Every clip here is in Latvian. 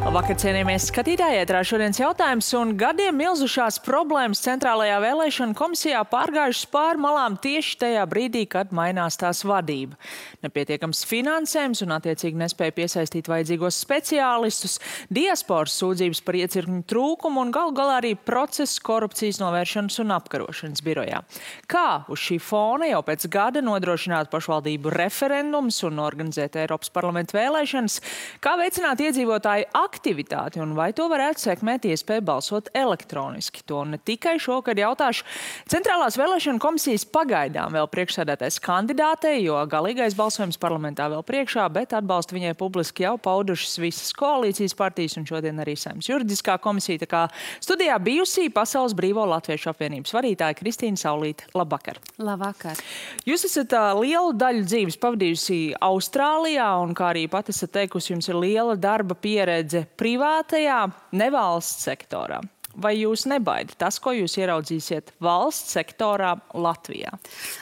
Labvakar, cienījamies skatītāji, ētrā šodienas jautājums, un gadiem milzušās problēmas centrālajā vēlēšana komisijā pārgājušas pāri malām tieši tajā brīdī, kad mainās tās vadība. Nepietiekams finansējums un attiecīgi nespēja piesaistīt vajadzīgos speciālistus, diasporas sūdzības par iecirkņu trūkumu un galu galā arī process korupcijas novēršanas un apkarošanas birojā. Kā uz šī fona jau pēc gada nodrošināt pašvaldību referendumus un organizēt Eiropas parlamenta vēlēšanas, kā veicināt iedzīvotāju aktivitāti un vai to varētu sekmēt iespēju balsot elektroniski. To ne tikai šokad jautāšu Centrālās vēlēšana komisijas pagaidām vēl priekšsēdētājs kandidātei, jo galīgais balsojums parlamentā vēl priekšā, bet atbalstu viņai publiski jau paudušas visas koalīcijas partijas un šodien arī Saeimas juridiskā komisija. Tā kā studijā bijusī Pasaules Brīvo Latviešu apvienības vadītāja Kristīna Saulīte. Labvakar! Labvakar! Jūs esat lielu daļu dzīves pavadījusi Austrālijā un, kā arī pat esat teikusi, jums ir liela darba pieredze privātajā, nevalsts sektorā. Vai jūs nebaida tas, ko jūs ieraudzīsiet valsts sektorā Latvijā?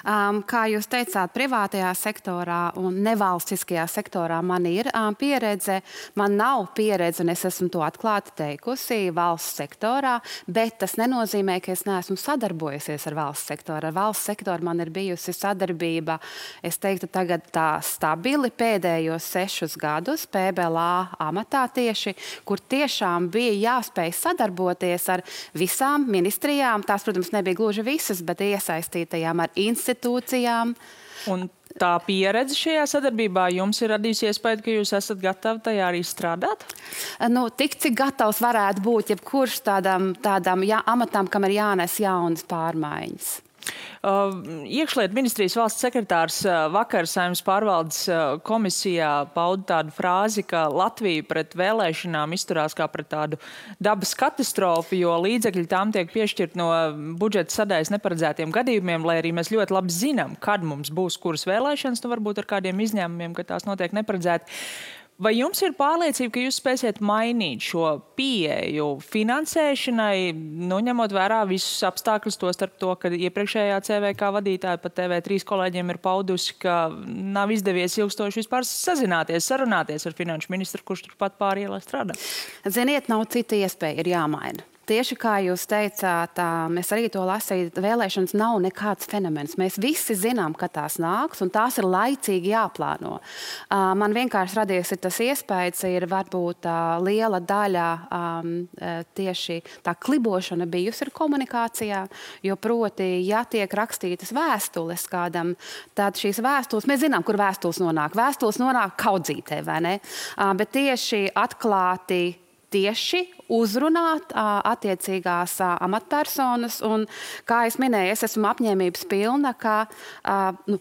Kā jūs teicāt, privātajā sektorā un nevalstiskajā sektorā man ir pieredze. Man nav pieredze, un es esmu to atklāti teikusi, valsts sektorā, bet tas nenozīmē, ka es neesmu sadarbojusies ar valsts sektoru. Ar valsts sektoru man ir bijusi sadarbība, es teiktu, tagad tā stabili pēdējos 6 gadus PBLA amatā tieši, kur tiešām bija jāspēj sadarboties ar visām ministrijām. Tās, protams, nebija gluži visas, bet iesaistītajām ar institūcijām. Un tā pieredze šajā sadarbībā jums ir radījusi iespēju, ka jūs esat gatavi tajā arī strādāt? Tik, cik gatavs varētu būt jebkurš tādām amatām, kam ir jānes jaunas pārmaiņas. Iekšlietu ministrijas valsts sekretārs vakar Saeimas pārvaldes komisijā pauda tādu frāzi, ka Latvija pret vēlēšanām izturās kā pret tādu dabas katastrofu, jo līdzekļi tām tiek piešķirt no budžeta sadaļas neparedzētiem gadījumiem, lai arī mēs ļoti labi zinām, kad mums būs kuras vēlēšanas, varbūt ar kādiem izņēmumiem, ka tās notiek neparedzēti. Vai jums ir pārliecība, ka jūs spēsiet mainīt šo pieeju finansēšanai, ņemot vērā visus apstākļus, tostarp to, ka iepriekšējā CVK vadītāja pat TV3 kolēģiem ir paudusi, ka nav izdevies ilgstoši vispār sazināties, sarunāties ar finanšu ministru, kurš turpat pāri ielai strādā? Ziniet, nav cita iespēja, ir jāmaina. Tieši kā jūs teicāt, mēs arī to lasīju, vēlēšanas nav nekāds fenomens. Mēs visi zinām, ka tās nāks, un tās ir laicīgi jāplāno. Man vienkārši radies tas iespējas, ir varbūt liela daļa tieši tā klibošana bijusi ir komunikācijā, jo proti, ja tiek rakstītas vēstules kādam, tad šīs vēstules, mēs zinām, kur vēstules nonāk. Vēstules nonāk kaudzītē, vai ne? Bet tieši atklāti tieši uzrunāt attiecīgās amatpersonas, un, kā es minēju, es esmu apņēmības pilna, ka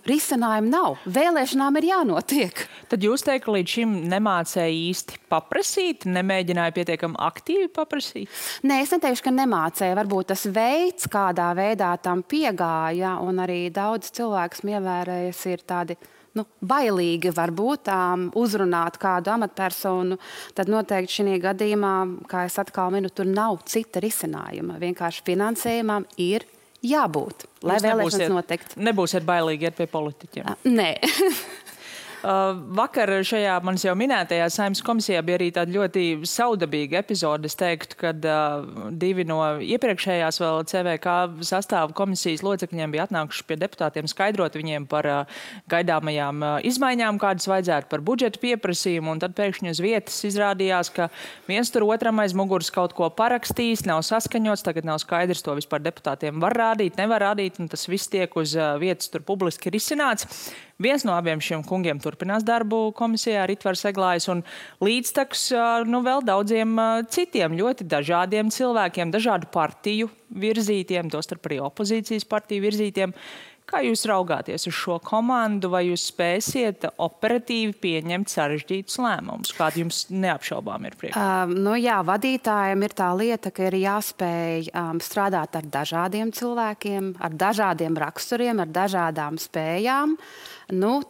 risinājumu nav. Vēlēšanām ir jānotiek. Tad jūs teikt, ka līdz šim nemācēja īsti paprasīt, nemēģināja pietiekami aktīvi paprasīt? Nē, es neteikšu, ka nemācēja. Varbūt tas veids, kādā veidā tam piegāja, un arī daudz cilvēks ievērējas ir tādi bailīgi varbūt uzrunāt kādu amatpersonu, tad noteikti šī gadījumā, kā es atkal minu, tur nav cita risinājuma. Vienkārši finansējumam ir jābūt, lai vēlēšanas notikt. Nebūsiet bailīgi iet pie politiķiem? Nē. Vakar šajā manis jau minētajā Saeimas komisijā bija arī tāda ļoti saudabīga epizode. Es teiktu, kad 2 no iepriekšējās vēl CVK sastāva komisijas locekļiem bija atnākuši pie deputātiem skaidrot viņiem par gaidāmajām izmaiņām, kādas vajadzētu par budžetu pieprasījumu, un tad pēkšņi uz vietas izrādījās, ka viens tur otram aiz muguras kaut ko parakstījis, nav saskaņots, tagad nav skaidrs, to vispār deputātiem var rādīt, nevar rādīt, un tas viss tiek uz vietas tur publiski risināts. Viens no abiem šiem kungiem turpinās darbu komisijā, Ritvars Eglājs, un līdztekus vēl daudziem citiem ļoti dažādiem cilvēkiem, dažādu partiju virzītiem, tostarp arī opozīcijas partiju virzītiem. Kā jūs raugāties uz šo komandu, vai jūs spēsiet operatīvi pieņemt sarežģītus lēmumus? Kādi jums neapšaubām ir priekšā? Jā, vadītājiem ir tā lieta, ka ir jāspēj strādāt ar dažādiem cilvēkiem, ar dažādiem raksturiem, ar dažādām spējām.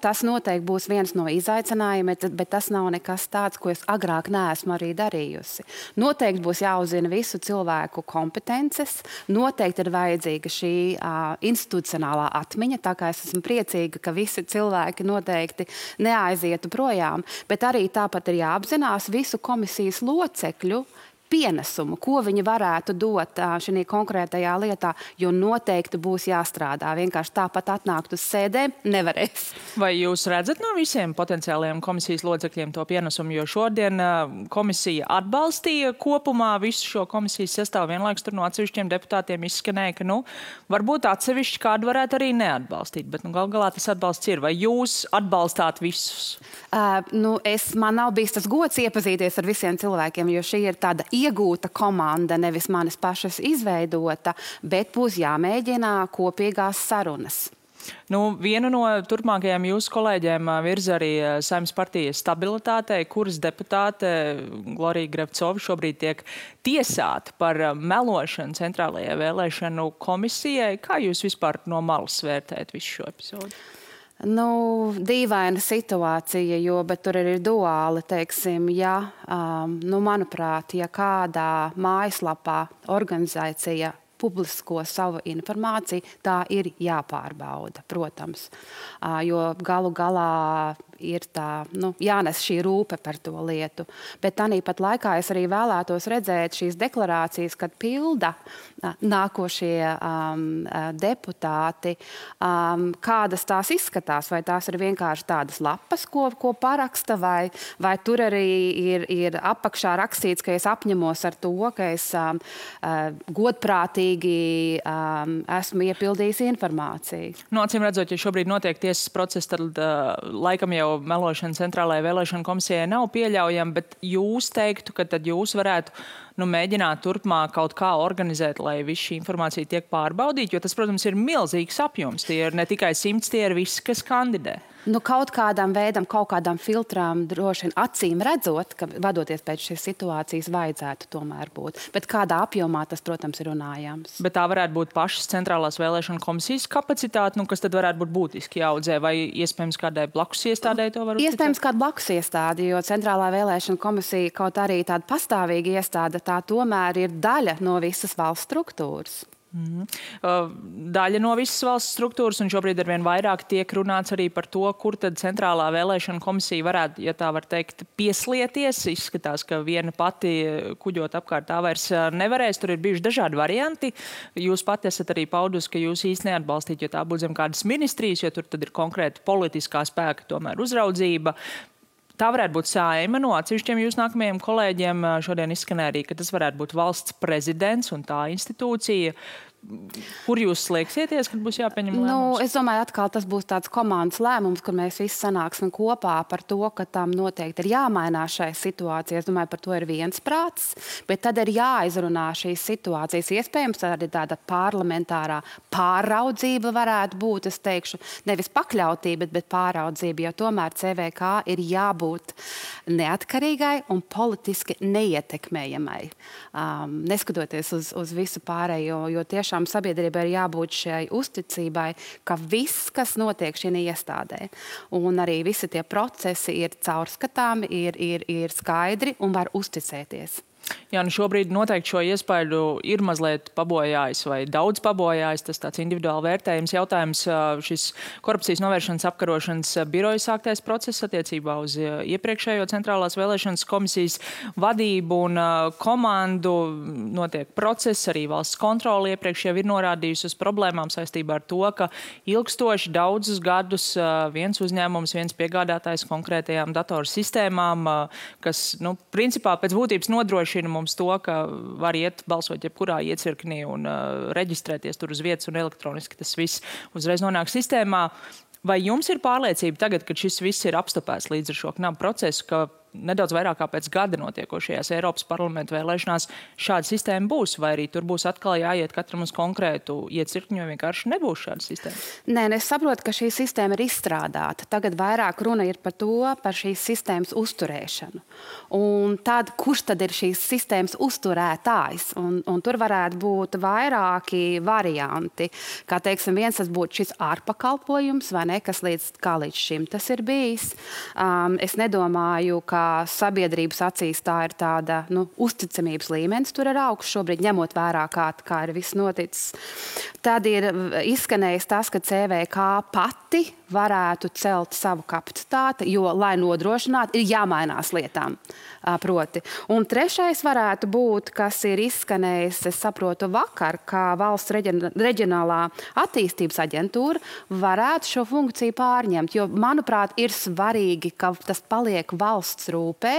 Tas noteikti būs viens no izaicinājumiem, bet tas nav nekas tāds, ko es agrāk neesmu arī darījusi. Noteikti būs jāuzzina visu cilvēku kompetences, noteikti ir vajadzīga šī institucionālā atmiņa, tā kā es esmu priecīga, ka visi cilvēki noteikti neaizietu projām, bet arī tāpat ir jāapzinās visu komisijas locekļu pienesumu, ko viņi varētu dot šajā konkrētajā lietā, jo noteikti būs jāstrādā. Vienkārši tāpat atnākt uz sēdēm nevarēs. Vai jūs redzat no visiem potenciālajiem komisijas locekļiem to pienesumu, jo šodien komisija atbalstīja kopumā visu šo komisijas sastāvu, vienlaikus tur no atsevišķiem deputātiem izskanēja, ka, varbūt atsevišķi kādu varētu arī neatbalstīt, bet gal galā tas atbalsts ir. Vai jūs atbalstāt visus? Man nav bijis tas gods iepazīties ar visiem cilvēkiem, jo šī ir tāda iegūta komanda, nevis manis pašas izveidota, bet būs jāmēģina kopīgās sarunas. Vienu no turpmākajiem jūsu kolēģiem virza arī Saeimas partijas stabilitātei, kuras deputāte Glorija Grevcova šobrīd tiek tiesāta par melošanu Centrālajai vēlēšanu komisijai. Kā jūs vispār no malas vērtējat visu šo epizodu? Dīvaina situācija, bet tur ir duāli, teiksim, manuprāt, ja kādā mājaslapā organizācija publisko savu informāciju, tā ir jāpārbauda, protams. Jo galu galā ir tā, jānes šī rūpe par to lietu. Bet tāpat laikā es arī vēlētos redzēt šīs deklarācijas, kad pilda nākošie deputāti, kādas tās izskatās, vai tās ir vienkārši tādas lapas, ko paraksta, vai tur arī ir apakšā rakstīts, ka es apņemos ar to, ka es godprātīgi esmu iepildījis informāciju. Acīm redzot, ja šobrīd notiek tiesas process, tad laikam jau melošana Centrālajai vēlēšanu komisijai nav pieļaujama, bet jūs teiktu, ka tad jūs varētu mēģināt turpmāk kaut kā organizēt, lai viss šī informācija tiek pārbaudīta, jo tas, protams, ir milzīgs apjoms. Tie ir ne tikai 100, tie ir visi, kas kandidē. Kaut kādam veidam, kaut kādam filtram droši vien acīm redzot, ka vadoties pēc šīs situācijas vajadzētu tomēr būt. Bet kādā apjomā tas, protams, ir runājams. Bet tā varētu būt pašas Centrālās vēlēšanu komisijas kapacitāte, kas tad varētu būt būtiski jāaudzē, vai iespējams kādai blakus iestādē to var uzticēt? Iespējams kāda blakus iestāde, jo Centrālā vēlēšana komisija kaut arī tāda pastāvīga iestāde, tā tomēr ir daļa no visas valsts struktūras. Daļa no visas valsts struktūras, un šobrīd arvien vairāk tiek runāts arī par to, kur tad Centrālā vēlēšana komisija varētu, ja tā var teikt, pieslieties. Izskatās, ka viena pati kuģot apkārt tā vairs nevarēs. Tur ir bijuši dažādi varianti. Jūs pati esat arī paudus, ka jūs īsti neatbalstīt, jo tā būtu zem kādas ministrijas, jo tur tad ir konkrēta politiskā spēka tomēr uzraudzība. Tā varētu būt Saeima. No atsevišķiem jūsu nākamajiem kolēģiem šodien izskanēja arī, ka tas varētu būt valsts prezidents un tā institūcija. Kur jūs slēgsieties, kad būs jāpieņem lēmums? Es domāju, atkal tas būs tāds komandas lēmums, kur mēs visi sanāksim kopā par to, ka tam noteikti ir jāmainās šai situācijai. Es domāju, par to ir viensprāts, bet tad ir jāizrunā šīs situācijas. Iespējams, arī tāda parlamentārā pāraudzība varētu būt, es teikšu, nevis pakļautība, bet pāraudzība, jo tomēr CVK ir jābūt neatkarīgai un politiski neietekmējamai. Neskatoties uz visu pārējo, jo tiešām sabiedrībai ir jābūt šai uzticībai, ka viss, kas notiek šī iestādē, un arī visi tie procesi ir caurskatāmi, ir skaidri un var uzticēties. Jā, šobrīd noteikti šo iespaidu ir mazliet pabojājis vai daudz pabojājis. Tas tāds individuāli vērtējums jautājums. Šis korupcijas novēršanas apkarošanas biroja sāktais process attiecībā uz iepriekšējo Centrālās vēlēšanas komisijas vadību un komandu. Notiek process, arī valsts kontrole iepriekš jau ir norādījusi uz problēmām saistībā ar to, ka ilgstoši daudzus gadus viens uzņēmums, viens piegādātājs konkrētajām datoru sistēmām, kas, principā pēc būtības nodrošina mums to, ka var iet balsot jebkurā iecirknī un reģistrēties tur uz vietas un elektroniski tas viss uzreiz nonāk sistēmā. Vai jums ir pārliecība tagad, kad šis viss ir apstopēts līdz ar šo knapu procesu, ka nedaudz vairāk kā pēc gada notiekošajās Eiropas parlamenta vēlēšanās šāda sistēma būs, vai arī tur būs atkal jāiet katram uz konkrētu iecirkņu, jo vienkārši nebūs šāda sistēma? Nē, es saprotu, ka šī sistēma ir izstrādāta. Tagad vairāk runa ir par šīs sistēmas uzturēšanu. Un tad, kurš tad ir šīs sistēmas uzturētājs? Un tur varētu būt vairāki varianti. Kā teiksim, viens tas būtu šis ārpakalpojums, vai ne, kas līdz šim tas ir bijis. Es nedomāju, ka sabiedrības acīs tā ir tāda uzticamības līmenis tur ir augsts šobrīd, ņemot vērā, kā ir viss noticis. Tad ir izskanējis tas, ka CVK pati varētu celt savu kapacitāti, jo, lai nodrošinātu, ir jāmainās lietām. Proti. Un trešais varētu būt, kas ir izskanējis, es saprotu, vakar, kā valsts reģionālā attīstības aģentūra varētu šo funkciju pārņemt, jo, manuprāt, ir svarīgi, ka tas paliek valsts rūpē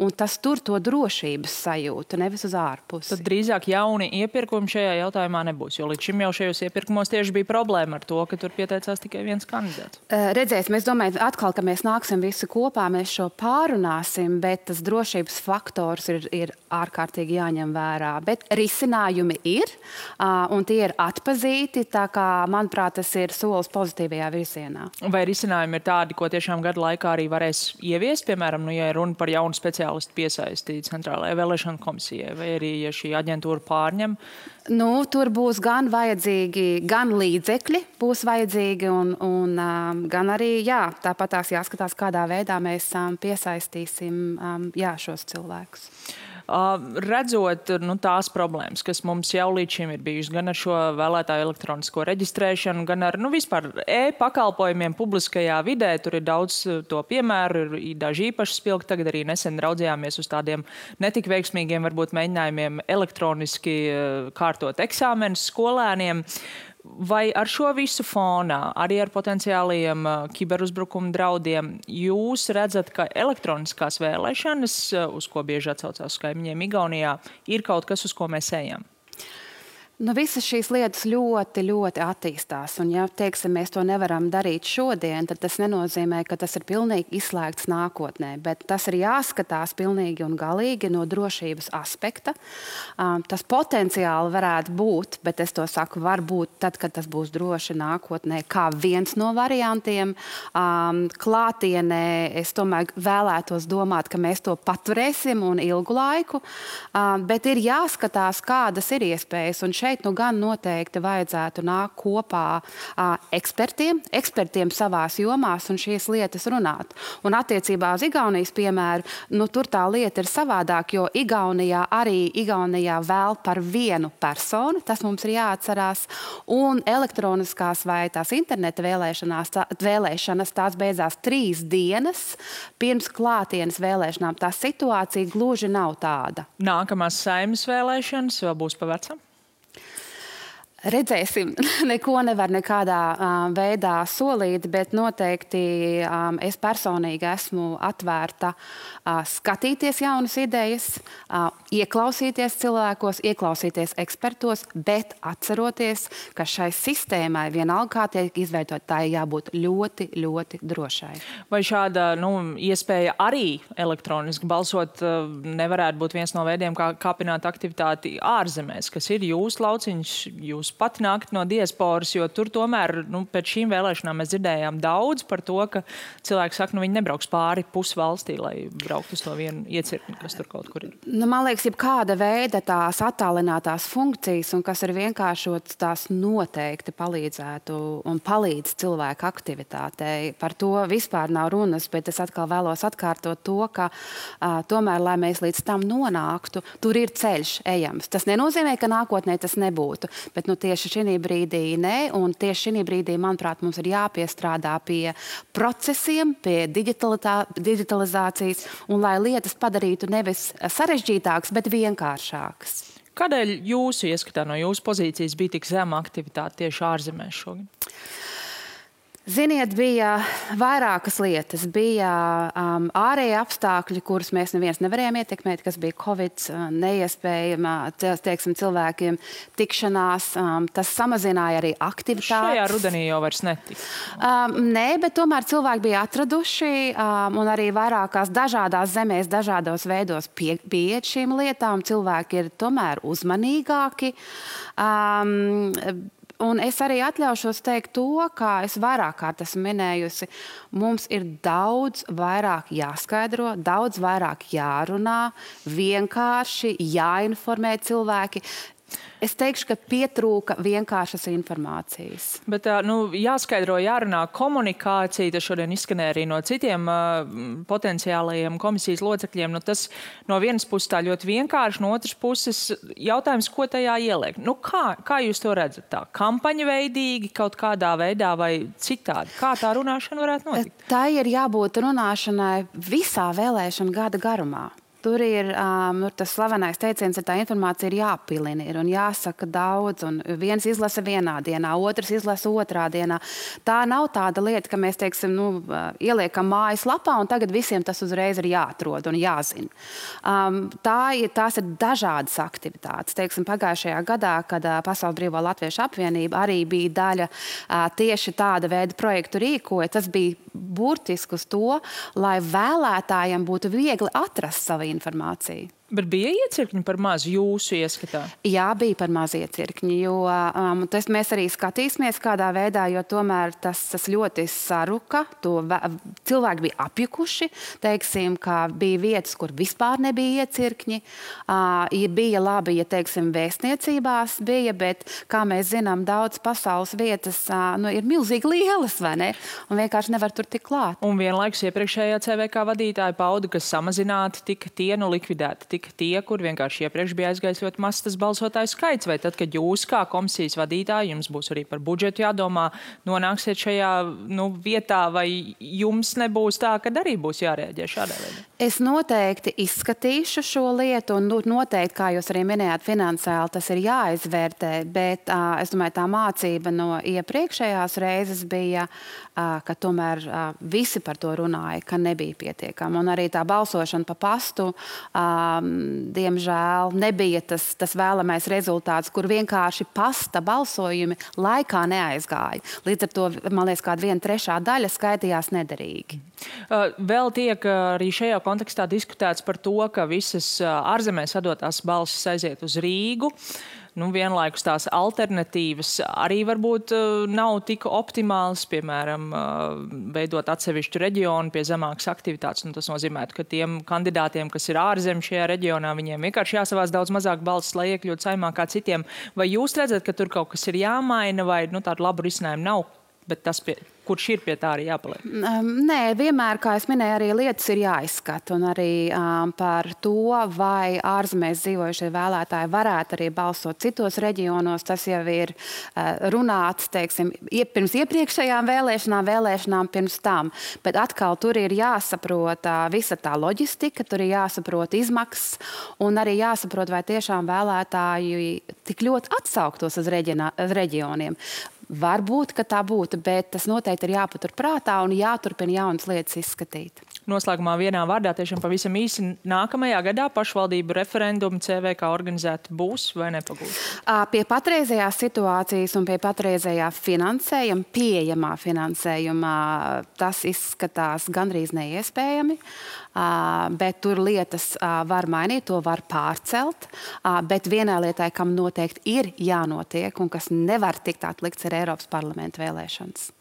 un tas tur to drošības sajūtu, nevis uz ārpusi. Tad drīzāk jauni iepirkumi šajā jautājumā nebūs, jo līdz šim jau šajos iepirkumos tieši bija problēma ar to, ka tur pieteicās tikai viens kandidāts. Redzēsim, es domāju, atkal, ka mēs nāksim visi kopā, mēs šo pārunāsim, bet tas drošības faktors ir ārkārtīgi jāņem vērā. Bet risinājumi ir, un tie ir atpazīti, tā kā, manuprāt, tas ir solis pozitīvajā virzienā. Vai risinājumi ir tādi, ko tiešām gadu laikā arī varēs ieviest, piemēram, ja runa par jaunu speciālistu piesaistītu Centrālajai vēlēšanu komisijai, vai arī, ja šī aģentūra pārņem? Tur būs gan vajadzīgi, gan līdzekļi būs vajadzīgi, un gan arī, tāpat tās jāskatās, kādā veidā mēs piesaistīsim šos cilvēkus. Redzot tās problēmas, kas mums jau līdz šim ir bijušas, gan ar šo vēlētāju elektronisko reģistrēšanu, gan ar vispār e-pakalpojumiem publiskajā vidē, tur ir daudz to piemēru, ir daži īpaši spilgti. Tagad arī nesen raudzījāmies uz tādiem netik veiksmīgiem varbūt mēģinājumiem elektroniski kārtot eksāmenus skolēniem. Vai ar šo visu fonā, arī ar potenciālajiem kiberuzbrukumu draudiem, jūs redzat, ka elektroniskās vēlēšanas, uz ko bieži atsaucās kaimiņiem Igaunijā, ir kaut kas, uz ko mēs ejam? Visas šīs lietas ļoti, ļoti attīstās. Un, ja teiksim, mēs to nevaram darīt šodien, tad tas nenozīmē, ka tas ir pilnīgi izslēgts nākotnē. Bet tas ir jāskatās pilnīgi un galīgi no drošības aspekta. Tas potenciāli varētu būt, bet es to saku, var būt tad, kad tas būs droši nākotnē, kā viens no variantiem. Klātienē es tomēr vēlētos domāt, ka mēs to paturēsim un ilgu laiku. Bet ir jāskatās, kādas ir iespējas. Un šeit gan noteikti vajadzētu nākt kopā ekspertiem savās jomās un šīs lietas runāt. Un attiecībā uz Igaunijas piemēru, tur tā lieta ir savādāk, jo Igaunijā vēl par vienu personu, tas mums ir jāatcerās, un elektroniskās vai tās interneta vēlēšanas tās beidzās 3 dienas pirms klātienes vēlēšanām. Tā situācija gluži nav tāda. Nākamās Saeimas vēlēšanas vēl būs pa vecam? Redzēsim, neko nevar nekādā veidā solīt, bet noteikti es personīgi esmu atvērta skatīties jaunas idejas, ieklausīties cilvēkos, ieklausīties ekspertos, bet atceroties, ka šai sistēmai vienalga kā tiek izveidot, tā jābūt ļoti, ļoti drošai. Vai šāda iespēja arī elektroniski balsot nevarētu būt viens no veidiem, kā kāpināt aktivitāti ārzemēs, kas ir jūsu lauciņš, jūs pati nākt no diasporas, jo tur tomēr pēc šīm vēlēšanām mēs dzirdējām daudz par to, ka cilvēki saka, viņi nebrauks pāri pusvalstī, lai brauktu uz to vienu iecirkni, kas tur kaut kur ir. Man liekas, kāda veida tās attālinātās funkcijas un kas ir vienkāršots, tās noteikti palīdzētu un palīdz cilvēku aktivitātei. Par to vispār nav runas, bet es atkal vēlos atkārtot to, ka tomēr, lai mēs līdz tam nonāktu, tur ir ceļš ejams. Tas nenozīmē, ka nākotnē tas nebūtu, bet tieši šī brīdī nē, un tieši šī brīdī, manuprāt, mums ir jāpiestrādā pie procesiem, pie digitalizācijas, un lai lietas padarītu nevis sarežģītākas, bet vienkāršākas. Kādēļ jūsu ieskatā no jūsu pozīcijas bija tik zema aktivitāte tieši ārzemēs šogad? Ziniet, bija vairākas lietas. Bija ārēji apstākļi, kurus mēs neviens nevarējām ietekmēt, kas bija Covid, neiespējama, teiksim, cilvēkiem tikšanās. Tas samazināja arī aktivitātes. Šajā rudenī jau vairs netika. Nē, bet tomēr cilvēki bija atraduši un arī vairākās dažādās zemēs, dažādos veidos pieiet šīm lietām. Cilvēki ir tomēr uzmanīgāki. Un es arī atļaušos teikt to, kā es vairāk kārt esmu minējusi, mums ir daudz vairāk jāskaidro, daudz vairāk jārunā, vienkārši jāinformē cilvēki. Es teikšu, ka pietrūka vienkāršas informācijas. Bet jāskaidro, jārunā komunikācija. Tas šodien izskanēja arī no citiem potenciālajiem komisijas locekļiem. Tas no vienas puses tā ļoti vienkārši, no otras puses jautājums, ko tajā ieliek. Kā jūs to redzat? Tā kampaņa veidīgi, kaut kādā veidā vai citādi? Kā tā runāšana varētu notikt? Tā ir jābūt runāšanai visā vēlēšana gada garumā. Tur ir tas slavenais teiciens, ka tā informācija ir jāpilina un jāsaka daudz. Un viens izlasa vienā dienā, otrs izlasa otrā dienā. Tā nav tāda lieta, ka mēs teiksim, ieliekam mājaslapā un tagad visiem tas uzreiz ir jāatrod un jāzina. Tās ir dažādas aktivitātes. Teiksim, pagājušajā gadā, kad Pasaules Brīvo Latviešu apvienība arī bija daļa tieši tāda veida projektu rīkoja, tas bija burtiski uz to, lai vēlētājiem būtu viegli atrast savu informāciju. Bet bija iecirkņi par maz jūsu ieskatā? Jā, bija par maz iecirkņi, jo mēs arī skatīsimies kādā veidā, jo tomēr tas ļoti saruka. Cilvēki bija apjukuši, teiksim, ka bija vietas, kur vispār nebija iecirkņi. Bija labi, ja teiksim, vēstniecībās bija, bet, kā mēs zinām, daudz pasaules vietas ir milzīgi lielas, vai ne? Un vienkārši nevar tur tik klāt. Un vienlaikus iepriekšējā CVK vadītāja pauda, ka samazināti tika tie, likvidēti tika tie, kur vienkārši iepriekš bija aizgājis ļoti mazs tas balsotāju skaits, vai tad, kad jūs kā komisijas vadītāji, jums būs arī par budžetu jādomā, nonāksiet šajā vietā, vai jums nebūs tā, kad arī būs jārēģē šādā veidā? Es noteikti izskatīšu šo lietu, un noteikti, kā jūs arī minējāt, finansiāli tas ir jāizvērtē, bet es domāju, tā mācība no iepriekšējās reizes bija, ka tomēr visi par to runāja, ka nebija pietiekama. Un arī tā balsošana pa pastu, diemžēl, nebija tas vēlamais rezultāts, kur vienkārši pasta balsojumi laikā neaizgāja. Līdz ar to, man liekas, kāda 1/3 daļa skaitījās nederīgi. Vēl tiek arī šajā kontekstā diskutēts par to, ka visas ārzemēs atdotās balsis aiziet uz Rīgu. Vienlaikus tās alternatīvas arī varbūt nav tik optimālas, piemēram, veidot atsevišķu reģionu pie zemākas aktivitātes. Tas nozīmētu, ka tiem kandidātiem, kas ir ārzem šajā reģionā, viņiem vienkārši jāsavāc daudz mazāk balsis, lai iekļūtu saimā kā citiem. Vai jūs redzat, ka tur kaut kas ir jāmaina vai tādu labu risinājumu nav, bet tas kurš ir pie tā arī jāpaliek? Nē, vienmēr, kā es minēju, arī lietas ir jāizskata. Un arī par to, vai ārzemēs dzīvojušie vēlētāji varētu arī balsot citos reģionos, tas jau ir runāts, teiksim, pirms iepriekšējām vēlēšanām pirms tam. Bet atkal tur ir jāsaprot visa tā loģistika, tur ir jāsaprot izmaksas un arī jāsaprot, vai tiešām vēlētāji tik ļoti atsauktos uz reģioniem. Varbūt, ka tā būtu, bet tas noteikti ir jāpatur prātā un jāturpina jaunas lietas izskatīt. Noslēgumā vienā vārdā tiešām pavisam īsi nākamajā gadā pašvaldību referendumu CVK organizēti būs vai nepagūs? Pie patreizējās situācijas un pie patreizējā finansējuma, pieejamā finansējumā, tas izskatās gandrīz neiespējami. Bet tur lietas var mainīt, to var pārcelt. Bet vienai lietai, kam noteikti ir jānotiek un kas nevar tikt atlikts, ir Eiropas parlamenta vēlēšanas.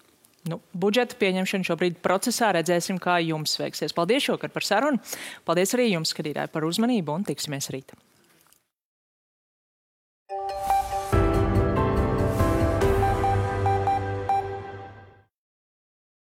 Budžeta pieņemšana šobrīd procesā, redzēsim, kā jums veiksies. Paldies šovakar par sarunu. Paldies arī jums, skatītāji, par uzmanību un tiksimies rīt.